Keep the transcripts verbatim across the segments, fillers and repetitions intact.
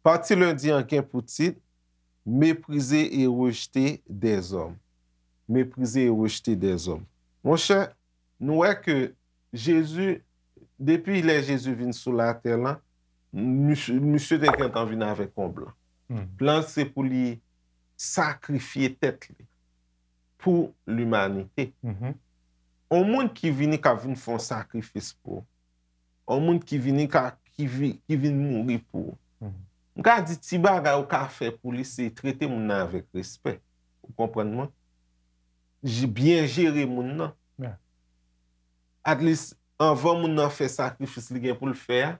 Pati lendi an gen pou tit, Méprisé et rejeté des hommes. Méprisé et rejeté des hommes. Monchè, nou wè ke Jezi, depi lè Jezi vin sou latè lan, misye, misye te gentan vin avèk yon plan. Plan se pou li sakrifye tèt li pou limanite. On moun ki vini k ap vin fè yon sakrifis pou ou. On moun ki vini ka, ki, vi, ki vin mouri pou ou. M ka di ti bagay ou ka fè pou li se trete moun nan avèk respè. Ou konprann mwen? J- Byen jere moun nan. At least, anvan moun nan fè sakrifis li gen pou l fè a,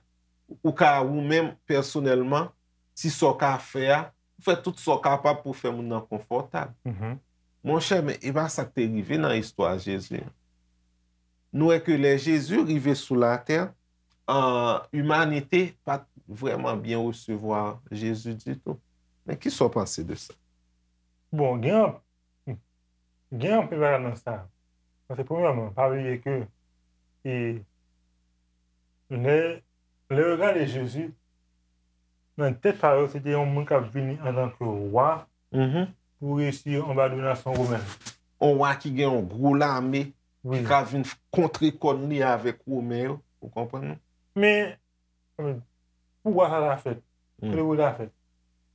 ou ka ou menm pèsonèlman, ti sa w ka fè a, ou fè tout sa w kapab pou fè moun nan konfòtab. Monchè, men e pa sa k te rive nan istwa Jezi an. Nou wè ke lè Jezi rive sou latè, an, imanite pa t vrèman byen resevwa Jezi ditou. Men ki sa w panse de sa? Bon, gen anp- gen anpil bagay nan sa. Paske premyèman, pa bliye ke e, lè, lè yo gade Jezi, nan tèt pa yo, se te yon moun k ap vini antanke wa pou resi anba dominasyon women. On wa ki gen yon gwo lame ki ka vin kontre kòn li avèk Women yo. Ou konprann? Men, pou wa sa ta fèt, kote pou ta fèt?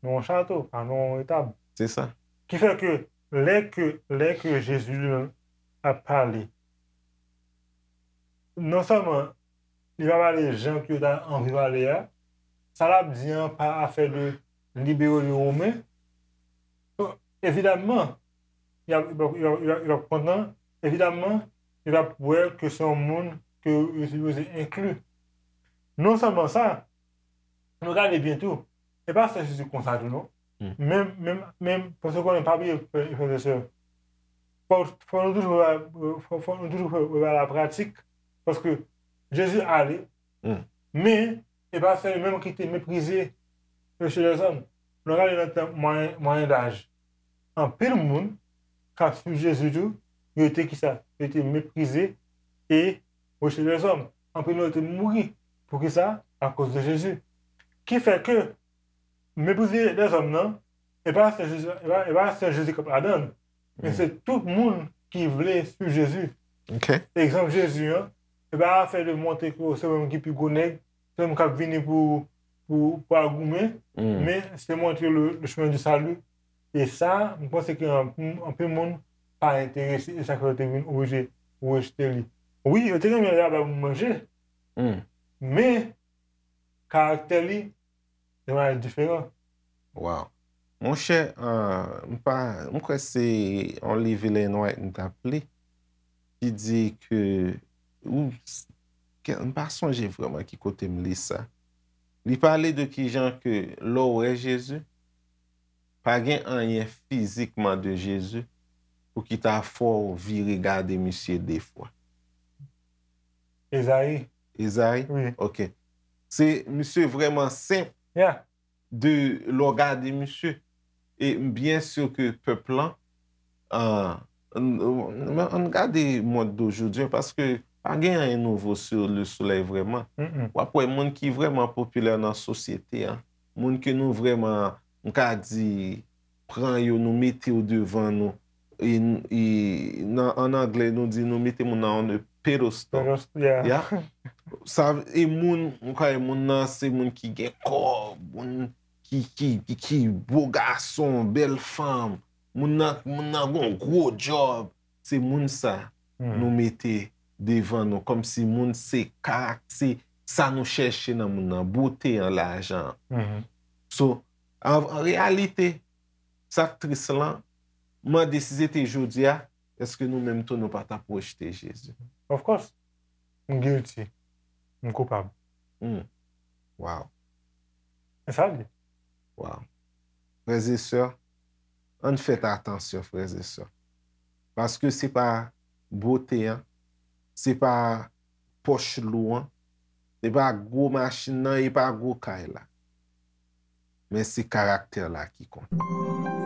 Nan yon chato, pa nan yon etab. Se sa. Ki fè ke lè ke, lè ke Jezi li menm ap pale, non sèlman li pa pale jan ke yo ta anvi pale a, sa l ap di an pa afè de libere de Women. Evidamman, y ap, y ap, y ap, y ap, y ap kontan. Evidamman, y ap wè ke se yon moun ke yo sipoze enkli. Non sèlman sa, nou gade byen tou, e pa sèl Jezi konsa tou non. Menm, menm, menm, paske konnen pa bliye, frè e sè, fò, fò nou toujou, fò, fò nou toujou fè, fè la pratik, paske Jezi ale, men e pa sèl li menm ki te meprize mesye lèzòm. Nou gade nan tan mwayen, mwayen daj, anpil moun k ap swiv Jezi tou, yo te kisa? Yo te meprize e mesye lèzòm. Anpil nan yo te mouri. Poukisa? Akoz de Jezi. Ki fè ke meprize lèzòm nan, e pa sèl Jezi, e pa, e pa sèl Jezi k ap ladan l, men se tout moun ki vle swiv Jezi. Egzanp Jezi an, e pa afè de montre ke se ou menm ki pi gwo nèg, se ou menm k ap vini pou, pou, pou al goumen, men se montre le, le chemin du salut. E sa, m panse ke anpil, anpil moun pa enterese, e sa fè yo te vin oblije rejte li. Wi, yo te renmen laba pou manje, men karaktè li te yon diferan. Wow. Monchè, m pa, m kwè se yon liv Ellen White m t ap li, ki di ke, ou, m pa sonje vrèman ki kote m li sa. Li pale de kijan ke lè w wè Jezi, pa gen anyen fizikman de Jezi pou ki ta fè w vire gade misye de fwa. Ezayi. Ezayi? Wi. Ok. Se, misye vrèman senp Yeah. de lè w gade misye. E m byen si ke pèp lan, an, an, an, ann gade mond de jodi a, paske pa gen anyen nouvo sou le solèy vrèman. W ap wè moun ki vrèman popilè nan sosyete an, moun ke nou vrèman, m ka di, pran yo, nou mete yo devan nou. E, e nan, an anglè, nou di nou mete moun nan on a pedestal. Pedestal, yeah. Ya. Sa, e moun, ou ka wè moun nan, se moun ki gen kò, moun ki, ki, ki, ki bo gason, bèl fanm. Moun nan, moun nan gon gwo djòb. Se moun sa nou mete devan nou, kòmsi moun se karak-, se sa nou chèche nan moun nan, bote an, lajan an. So, an, an reyalite, sa k tris lan, mande si se te jodi a, èske nou menm tou nou pa t ap rejte Jezi? Of course. M guilty. M koupab. Wow. E sa l ye. Wow. Frè e sè, ann fèt atansyon, frè e sè. Paske se pa bote an, se pa pòch lou an, se pa gwo machin nan, e pa gwo kay la. Men se karaktè la ki konte.